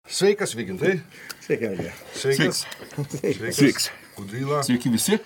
Sveikas, Vygintai. Sveiki, Algi. Sveikas. Sveiks. Kudryla. Sveiki visi.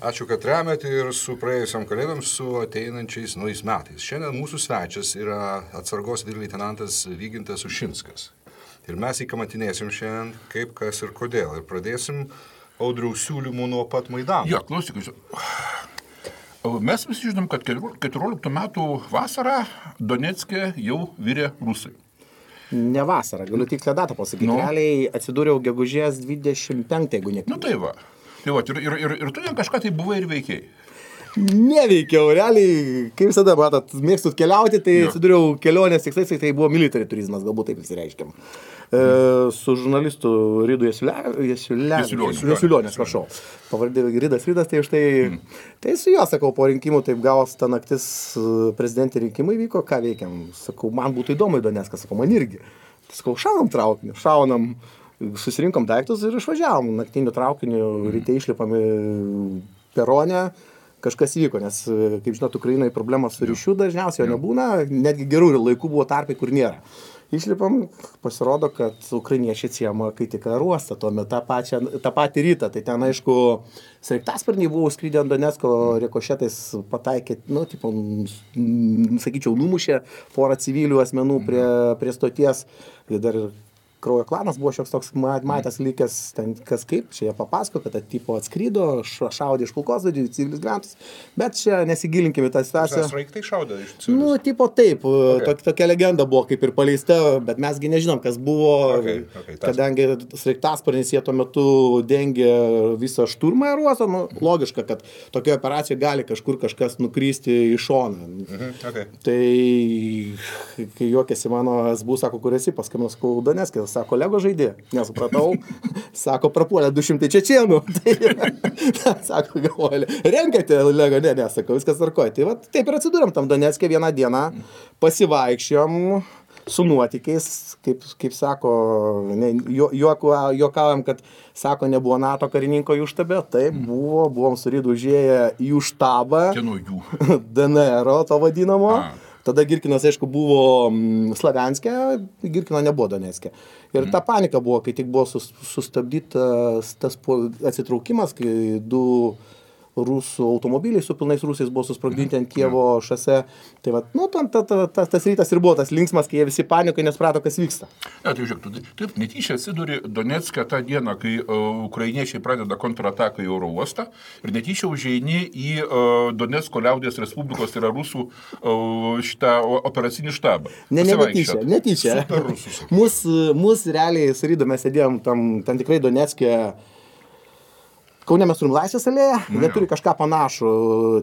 Ačiū, kad remiate ir su praėjusiam kalėdom, su ateinančiais naujais metais. Šiandien mūsų svečias yra atsargos leitenantas Vygintas Ušinskas. Ir mes įkamatinėsim šiandien kaip, kas ir kodėl. Ir pradėsim Audriaus siūlymų nuo pat Maidano. Jo, klausykis. Mes visi žinom, kad 14 metų vasarą Donecke jau virė rusai. Ne vasarą, galiu tikslią datą pasakyti. Realiai atsidūriau gegužės 25, jeigu neklystu. Nu tai va. Tai va, ir tu ten kažką tai buvai ir veikiai. Neveikiau, realiai, kaip visada, matot, mėgstat keliauti, tai atsidūriau kelionės tikslais, tai buvo military turizmas, galbūt taip įsireiškiam. Su žurnalistu Rydu Jasiulionė, prašau. Pavardė Rydas, tai štai, tai su juo, sakau, po rinkimų taip gavos ta naktis prezidentė rinkimai vyko, ką veikiam. Sakau, man būtų įdomu į Donecką, sakau, man irgi. Sakau, šaunam traukiniu, susirinkom daiktus ir išvažiavom. Naktiniu traukiniu, ryte išlipam perone. Kažkas įvyko, nes, kaip žinot, Ukrainai problemos su ryšiu dažniausiai jo nebūna, netgi gerų laikų buvo tarpai, kur nėra. Išlipam, pasirodo, kad ukrainiečiai atsiema kai tik aerouostą, tuomet tą patį rytą. Tai ten, aišku, sraigtasparniai buvo skrydę ant Donecko, rikošetais pataikė, sakyčiau, numušė porą civilių asmenų prie stoties. Dar Kraujo klanas buvo šioks toks matęs likęs, ten kas kaip, čia jie papasako, kad tipo atskrydo, šaudė iš kulkosvaidžių, civilius gyventojus, bet čia nesigilinkime tą situaciją. Sraigtai šaudė iš civilius? Nu, tipo taip, tokia legenda buvo kaip ir paleista, bet mesgi nežinom, kas buvo, kadangi sraigtasparnis jie tuo metu dengė visą šturmą aerouosto, logiška, kad tokioje operacijoje gali kažkur kažkas nukristi į šoną. Tai, kai juokėsi mano SBU, sako, kur esi, paskambinau, sakau, Donecke, sako, Lego žaidė, nesupratau, sako, prapuolė 200 čečėnų, tai, sako, galvoja, renkate Lego, ne, sako, viskas tvarkoja. Tai va, taip ir atsidūrėm tam Donecke vieną dieną, pasivaikščiom su nuotykiais, kaip sako, juokaujam, kad, sako, nebuvo NATO karininko jų štabe, taip, buvom su Rydu užėję į jų štabą, DNR, to vadinamo. Tada Girkinas, aišku, buvo Slavianske, Girkino nebuvo Donecke. Ir ta panika buvo, kai tik buvo sustabdytas tas atsitraukimas, kai 2 rusų automobiliai su pilnais rusais buvo susprogdinti ant Kijevo šose. Tai va, tas rytas ir buvo tas linksmas, kai jie visi panikai nesprato, kas vyksta. Ne, tai žiūrėk, taip netyčia atsiduri Donecke tą dieną, kai ukrainiečiai pradeda kontrataką į oro uostą ir netyčia užeini į Donecko liaudies Respublikos, tai yra rusų šitą operacinį štabą. Netyčia. Super rusus. Mus realiai su Rydu mes sėdėjom tam tikrai Donecke. Kaune mes turim Laisvės alėją, jie turi kažką panašų,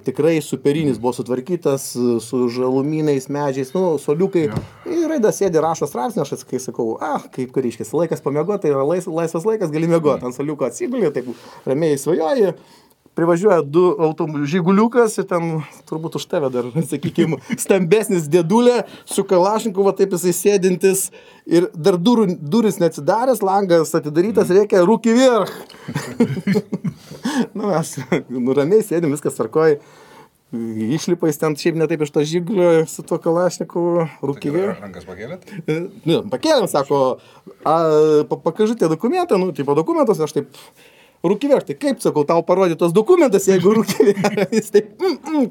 tikrai superinis buvo sutvarkytas, su žalumynais, medžiais, soliukai. Ir Raidas sėdi, rašo straipsnį, aš kai sakau, kaip kariškis, laikas pamiegoti, tai yra laisvas laikas, gali miegoti, ant soliuko atsigulė, taip ramiai svajoji. Privažiuoja 2 žiguliukas ir ten turbūt už tave dar, sakykime, stambesnis dėdulė su kalašnikovu, taip jisai sėdintis ir dar duris neatsidaręs, langas atidarytas, reikia rūkį vyrch. Mes ramiai sėdim, viskas tvarkoja. Išlipais ten šiaip ne taip iš to žigulio su tuo kalašnikovu, rūkį vyrch. Rankas pakėlėt? Pakėlėm, sako, pakažite dokumentą, tipo dokumentus, aš taip... Rūkivėr, tai kaip, sakau, tau parodė tos dokumentas, jeigu rūkivėr, jis taip,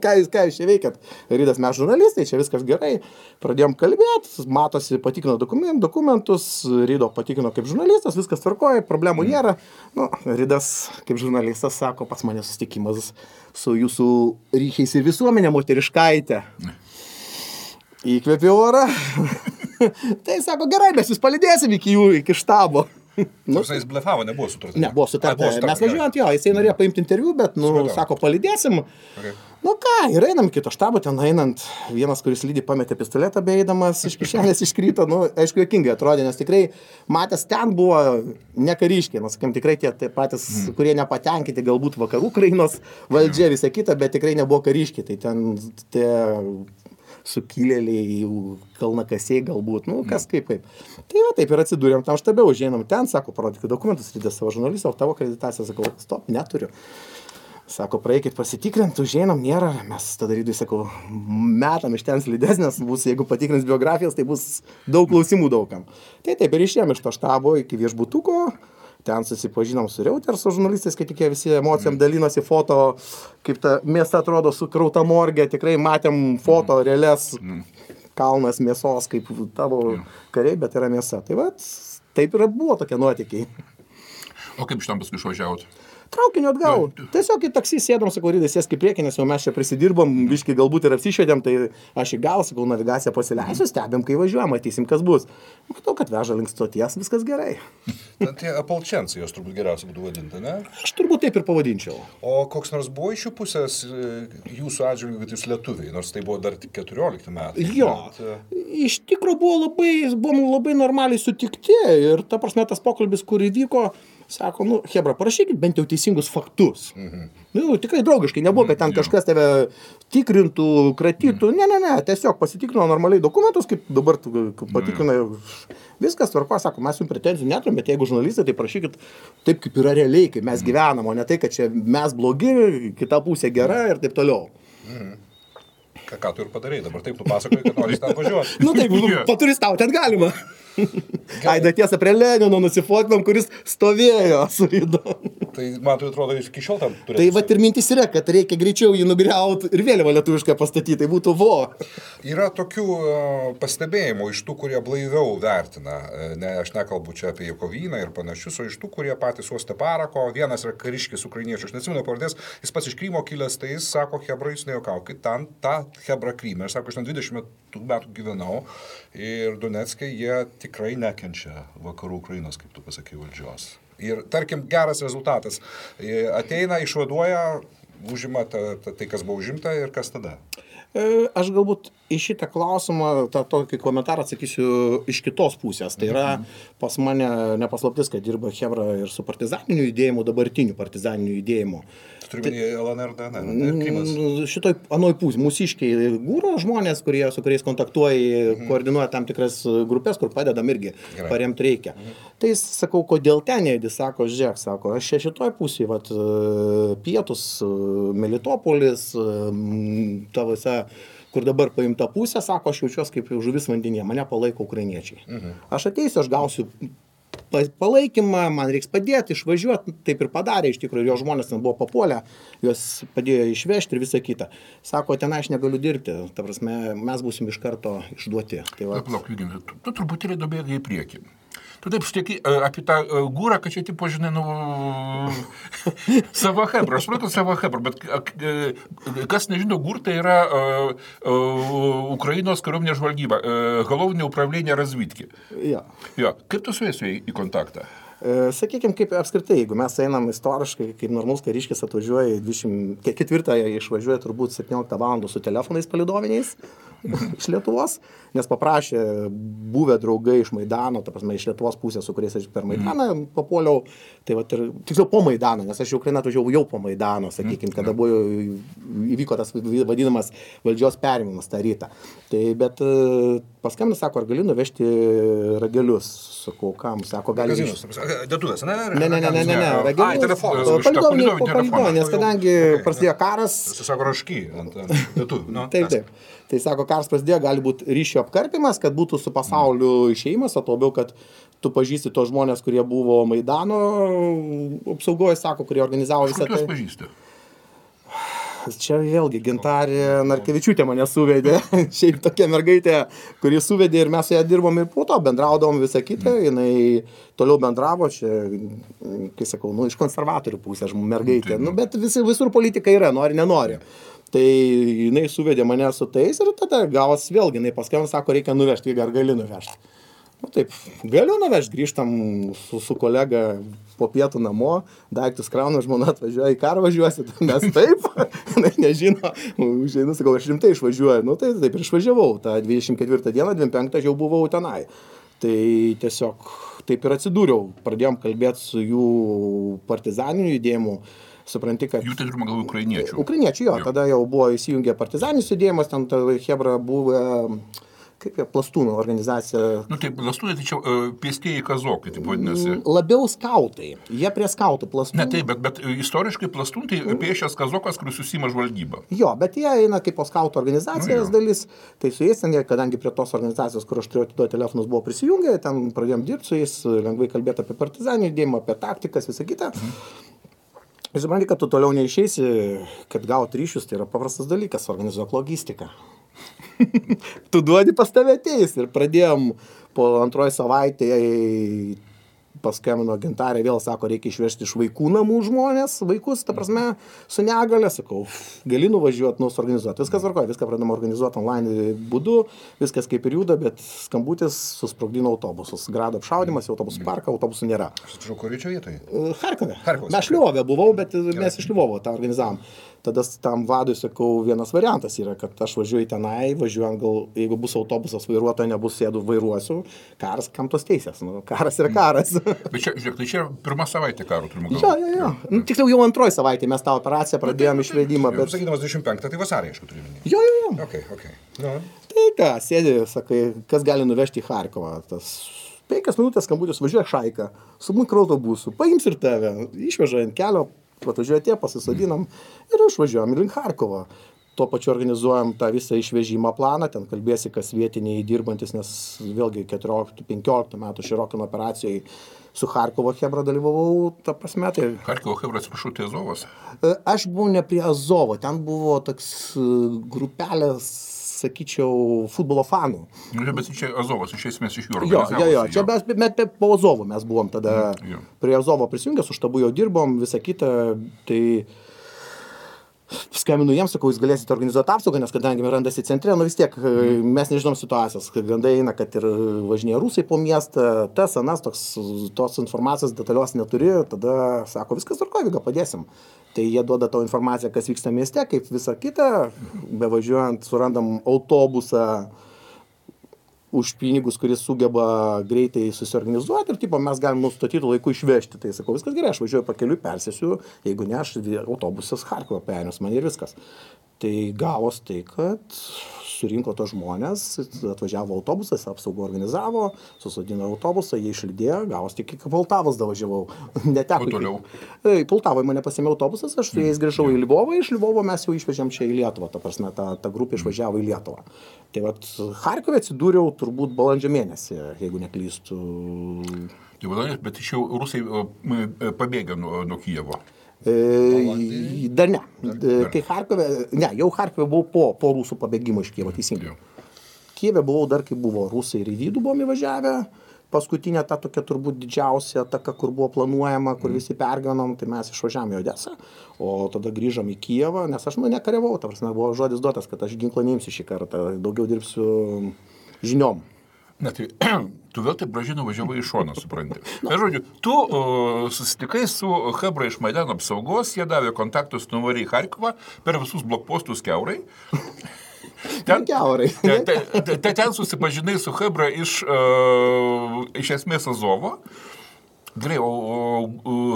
ką jūs čia veikiat? Rydas, mes žurnalistai, čia viskas gerai, pradėjom kalbėti, matosi, patikino dokumentus, Rydo patikino kaip žurnalistas, viskas tvarkoja, problemų nėra. Rydas kaip žurnalistas sako, pas mane susitikimas su jūsų ryšiais ir visuomenė moteriškaitė. Įkvėpė orą, tai sako, gerai, mes jūs palydėsim iki štabo. Jis blefavo, nebuvo sutarta. Nebuvo sutarta. Mes važiuojant jo, jisai norėjo paimti interviu, bet, sako, palydėsim. Ir einam kito štabo, ten einant, vienas, kuris lydi, pametė pistoletą beeidamas, iš kišenės iškrito, aišku, juokingai atrodė, nes tikrai matęs ten buvo ne kariškiai, sakim, tikrai tie patys, kurie nepatenkinti galbūt vakarų Ukrainos valdžia, visą kitą, bet tikrai nebuvo kariškiai, tai ten tie sukilėliai, kalnakasiai galbūt, kas kaip. Tai va, taip ir atsidūrėm tam štabe, užeinam ten, sako, parodykit dokumentus, Rydas savo žurnalistą, o tavo akreditaciją, sakau, stop, neturiu. Sako, praeikit pasitikrint, užeinam, nėra. Mes tada rydui, sakau, metam iš ten slidesnės, bus, jeigu patikrins biografijas, tai bus daug klausimų daugam. Tai taip ir išėjom iš to štabo iki viešbutuko, ten susipažinom su Reuters, su žurnalistais, kai tik jie visi emocijom dalinosi foto, kaip ta mėsa atrodo sukrauta morgė, tikrai matėm foto realias, kalnas mėsos, kaip tavo kariai, bet yra mėsa. Tai va, taip ir buvo tokie nuotykiai. O kaip iš tam paskui išvažiavot? Traukiniu atgal. Tiesiog į taksį sėdom, sakau, Rydai, sėsk į priekį, nes jau mes čia prisidirbom, biškai galbūt ir apsišvedėm, tai aš į gal, sakau, navigaciją pasileisiu, stebėm, kai važiuojam, matysim, kas bus. Matau, kad veža link stoties, viskas gerai. Tie apalčencijos jos turbūt geriausia būtų vadinti, ne? Aš turbūt taip ir pavadinčiau. O koks nors buvo iš jų pusės jūsų atžvilgiu, kad jūs lietuviai, nors tai buvo dar tik 14 metai. Jo, iš tikro buvom labai normaliai sutikti ir ta prasme tas pokalbis, kur įvyko, sako, nu, hebra, parašykit bent jau teisingus faktus. Nu, tikrai draugiškai, nebuvo, kad ten kažkas tave tikrintų, kratytų. Ne, tiesiog pasitikrino normaliai dokumentus, kaip dabar patikrina, viskas tvarko, sako, mes jums pretenzijų neturim, bet jeigu žurnalistai, tai prašykit taip, kaip yra realiai, kaip mes gyvenam, o ne tai, kad čia mes blogi, kita pusė gera ir taip toliau. Ką tu ir padarei, dabar taip tu pasakoji, kad nori ten važiuoti. Nu taip, paturistaut ten galima. Aida tiesa prie Lenino nusifotkinom, kuris stovėjo su Rydu. Tai man tai atrodo, jūs iki šiol tam turėtų. Tai va ir mintis yra, kad reikia greičiau jį nugriauti ir vėliavą lietuvišką pastatyti, tai būtų vo. Yra tokių pastebėjimų iš tų, kurie blaiviau vertina. Ne, aš nekalbu čia apie Jakovyną ir panašius, o iš tų, kurie patys uostė parako. Vienas yra kariškis ukrainiečių, aš neatsimenu pavardės, jis pats iš Krymo kilęs, tai jis sako, hebra, jūs nejuokaukit, ten ta hebra Kryme. Aš sako, aš ten 20 metų gyvenau ir Donecke jie tikrai nekenčia vakarų Ukrainos, kaip tu pasakai, valdžios. Ir, tarkim, geras rezultatas. Ateina, išvaduoja, užima tai, kas buvo užimta ir kas tada? Aš galbūt į šitą klausimą, tokį komentarą atsakysiu iš kitos pusės. Tai yra pas mane nepaslaptis, kad dirba hebra ir su partizaniniu judėjimu, dabartiniu partizaniniu judėjimu. Turiuomenį LNR, DNR, šitoj anoj pusė, mūsiškiai gūro žmonės, su kuriais kontaktuoja, koordinuoja tam tikras grupės, kur padedam irgi, paremti reikia. Tai sakau, kodėl ten jėdi, sako, žiūrėk, sako, aš šitoj pusėje, vat, pietus, Melitopolis, ta visa, kur dabar paimta pusė, sako, aš jaučiuosi kaip žuvis vandenyje, mane palaiko ukrainiečiai. Aš ateisiu, aš gausiu palaikymą, man reiks padėti, išvažiuoti, taip ir padarė, iš tikrųjų, jo žmonės ten buvo papuolę, juos padėjo išvežti ir visą kitą. Sako, ten aš negaliu dirbti, ta prasme, mes būsim iš karto išduoti. Tai va. Palauk, Vygintai, tu truputėlį dobėgai į priekį. Tu taip šneki apie tą gūrą, kad čia, tipo, žinai, savo hebra, aš supratau savo hebra, bet kas nežino, gūr tai yra Ukrainos kariuomenės žvalgyba, головне управление разведки. Ja. Jo. Kaip tu su jais į kontaktą? Sakykime, kaip apskritai, jeigu mes einam istoriškai, kaip normalus kariškis atvažiuoja, 24-ąją išvažiuoja turbūt 17 valandų su telefonais palidoviniais iš Lietuvos, nes paprašė buvę draugai iš Maidano, ta prasme, iš Lietuvos pusės, su kuriais aš per Maidaną papuoliau, tai va, tiksliau po Maidano, nes aš į Ukrainą atvažiavau jau po Maidano, sakykime, kada įvyko tas vadinamas valdžios perėmimas tą rytą. Tai, bet paskambino, sako, ar gali nuvežti ragelius, sakau, kam, sako, gali... Dėtuvės, ne? Ne, ragelius. Palidoviniai, nes kadangi prasidėjo karas... Sako, rašky ant dėtuvių. Taip. Tai sako, karas prasidėjo, gali būti ryšio apkarpimas, kad būtų su pasauliu išėjimas, o labiau, kad tu pažįsti tos žmonės, kurie buvo Maidano apsaugoje, sako, kurie organizavo visą tai. Kur tu juos pažįsti? Čia vėlgi Gintarė Narkevičiūtė mane suvedė, šiaip tokia mergaitė, kuri suvedė ir mes su ją dirbom ir po to bendraudavom visą kitą, jinai toliau bendravo, čia, kai sakau, iš konservatorių pusės mergaitė, bet visur politika yra, nori, nenori. Tai jinai suvedė mane su tais ir tada gavos vėlgi, jinai paskambino, sako, reikia nuvežti, ar gali nuvežti. Nu taip, galiu nuvežti, grįžtam su kolega po pietų namo, daiktus kraunu, žmona atvažiuoja, į karą važiuosi, mes taip, nežino, užeinu, sakau, aš rimtai išvažiuoju, nu tai taip ir išvažiavau, tą 24 dieną, 25 jau buvau tenai. Tai tiesiog taip ir atsidūriau, pradėjom kalbėti su jų partizaniniu judėjimu, supranti, kad... Jų tai turime galvo ukrainiečių. Ukrainiečių, jo, tada jau buvo įsijungę partizaninis judėjimas, ten hebra buvo kaip jie, plastūnų organizacija. Nu, tai plastūnai, tai čia pėstieji kazokai, taip vadinasi. Labiau skautai. Jie prie skautų plastūnų. Ne, taip, bet istoriškai plastūn tai pėsčias kazokas, kuris susima žvalgybą. Jo, bet jie eina kaip po skautų organizacijos dalis. Tai su jais, kadangi prie tos organizacijos, kur aš turėjau atiduoti telefonus, buvo prisijungę, ten pradėjom dirbti su jais, lengvai kalbėti apie partizanį judėjimą, apie taktikas, visą kitą. Ir supranti, kad tu toliau neišeisi, kad gauti ryšius, tai yra paprastas dalykas, organizuok logistiką. Tu duodi, pas tave ateis. Ir pradėjom po antroji savaitė, paskambino Gintarė, vėl sako, reikia išvežti iš vaikų namų žmonės, vaikus, ta prasme, su negale, sakau, gali nuvažiuoti, suorganizuoti. Viskas varkoja, viską pradėjome organizuoti online būdu, viskas kaip ir juda, bet skambutis susprogdino autobusus. Grado apšaudimas, autobusų parką, autobusų nėra. Atsiprašau, kur čia vietoje? Charkove. Mes Lvove buvau, bet mes iš Lvovo tą organizavom. Tada tam vadui sakau, vienas variantas yra, kad aš važiuoju tenai, važiuojant gal, jeigu bus autobusas vairuotojo, nebus sėdu, vairuosiu, karas, kam tos teisės, nu, karas yra karas. Bet čia, žiūrėk, tai čia pirma savaitė karo turime galvoti. Jo. Nu, tiksliau jau antroji savaitė mes tą operaciją pradėjom išvedimą, bet... Sakydamas 25, tai vasarį, aišku, turiu minėti. Jo. Okay. No. Tai ką, sėdi, sakai, kas gali nuvežti į Charkovą, tas 5 minutės skambutis, važiuoja Šaika, su mikroautobusu, paims ir tave, išveža ant kelio, atvažiuoja tie, pasisodinam ir išvažiuojam link Charkovo. Tuo pačiu organizuojam tą visą išvežimo planą, ten kalbėsi, kas vietiniai dirbantis, nes vėlgi 14-15 metų Širokino operacijai su Charkovo Chebra dalyvavau, ta prasme. Tai... Charkovo Chebra, atsiprašau, tai Azovas? Aš buvau ne prie Azovo, ten buvo toks grupelės, sakyčiau, futbolo fanų. Bet čia Azovas, iš esmės iš jų organizavosi. Jo, čia mes po Azovo mes buvom tada, prie Azovo prisijungę, su štabu jau dirbom, visą kitą, tai skambinu jiems, sakau, jūs galėsite organizuoti apsaugą, nes kadangi randasi centre, nu vis tiek mes nežinom situacijos, kad gandai eina, kad ir važinėja rusai po miestą, tas, anas, tos informacijos detalios neturi, tada sako, viskas tvarkoja, Viga, padėsim. Tai jie duoda tau informaciją, kas vyksta mieste, kaip visą kitą, bevažiuojant surandam autobusą už pinigus, kuris sugeba greitai susiorganizuoti ir tipo, mes galim nustatytų laiku išvežti. Tai sakau, viskas gerai, aš važiuoju pakeliui, persėsiu, jeigu ne, aš autobusas Charkovą perėmės man ir viskas. Tai gavos tai, kad surinko tos žmonės, atvažiavo autobusas, apsaugą organizavo, susodino autobusą, jie išlydėjo, gavos tik iki Poltavos davažiavau. Neteko. O toliau? Poltavoje mane pasėmė autobusas, aš su jais grįžau į Lvovą, iš Lvovo mes jau išvežėm čia į Lietuvą, ta prasme, ta grupė išvažiavo į Lietuvą. Tai vat Charkove atsidūriau turbūt balandžio mėnesį, jeigu neklystu. Bet iš jau rusai pabėgė nuo Kijevo. Dar ne. Kai Charkove, jau Charkove buvau po rusų pabėgimo iš Kijevo, teisingai. Kijeve buvau dar, kai buvo rusai ir į vidų buvom įvažiavę. Paskutinė ta tokia turbūt didžiausia ataka, kur buvo planuojama, kur visi perganom, tai mes išvažiavome į Odesą, o tada grįžom į Kijevą, nes aš nekariavau, ta prasme, buvo žodis duotas, kad aš ginklą neimsiu šį kartą, daugiau dirbsiu žiniom. Na tai, tu vėl taip gražiai nuvažiavai iš šoną, supranti. Na, žodžiu, tu susitikai su Chebra iš Maidano apsaugos, jie davė kontaktus, nuvarė į Charkovą per visus blokpostus kiaurai. Ten susipažinai su Chebra iš esmės Azovo. Gerai, o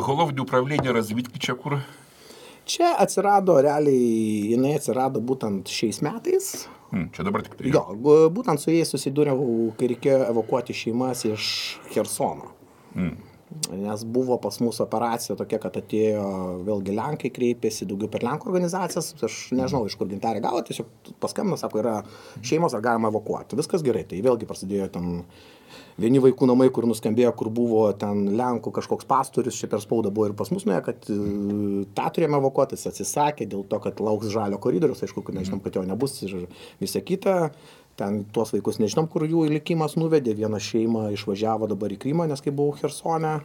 Головне управление разведки čia kur? Čia atsirado, realiai, jinai atsirado būtent šiais metais. Čia dabar tik tai. Jo, būtent su jais susidūriau, kai reikėjo evakuoti šeimas iš Chersono. Nes buvo pas mūsų operacija tokia, kad atėjo vėlgi Lenkai kreipėsi, daugiau per Lenkų organizacijas, aš nežinau, iš kur Gintarė gavo, tiesiog paskambino, sako, yra šeimos, ar galima evakuoti. Viskas gerai, tai vėlgi prasidėjo ten vieni vaikų namai, kur nuskambėjo, kur buvo ten Lenkų kažkoks pastorius, čia per spaudą buvo ir pas mus nuėjo, kad tą turėjome evakuoti, jis atsisakė dėl to, kad lauks žalio koridorius, aišku, kad nežinom, kad jo nebus ir visa kita. Ten tuos vaikus nežinom, kur jų likimas nuvedė, viena šeima išvažiavo dabar į Krymą, nes kai buvau Chersone,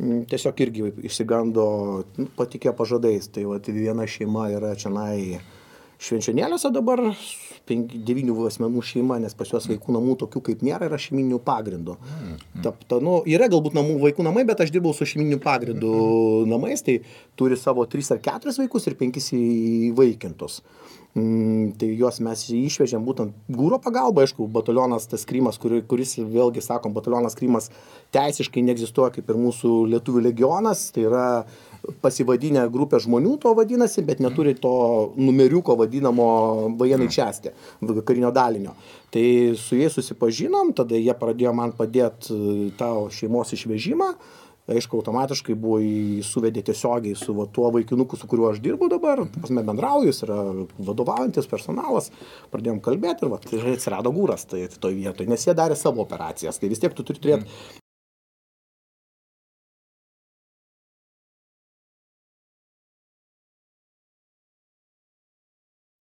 tiesiog irgi išsigando, patikėjo pažadais, tai va, viena šeima yra čianai Švenčionėliuose dabar, 9 asmenų šeima, nes pas juos vaikų namų tokių kaip nėra, yra šeiminių pagrindų. Yra galbūt vaikų namai, bet aš dirbau su šeiminių pagrindų namais, tai turi savo 3 ar 4 vaikus ir 5 įvaikintus. Tai juos mes išvežėm būtent Gūro pagalba, aišku, batalionas tas Krymas, kuris vėlgi, sakom, batalionas Krymas teisiškai neegzistuoja kaip ir mūsų lietuvių legionas, tai yra pasivadinę grupę žmonių to vadinasi, bet neturi to numeriuko vadinamo vojenai čiasti, karinio dalinio. Tai su jais susipažinom, tada jie pradėjo man padėti tą šeimos išvežimą. Aišku, automatiškai buvo suvedė tiesiogiai su tuo vaikinuku, su kuriuo aš dirbu dabar, pasme bendrauju, jis yra vadovaujantis personalas, pradėjom kalbėti ir atsirado Gūras toj vietoj, nes jie darė savo operacijas, tai vis tiek tu turi turėti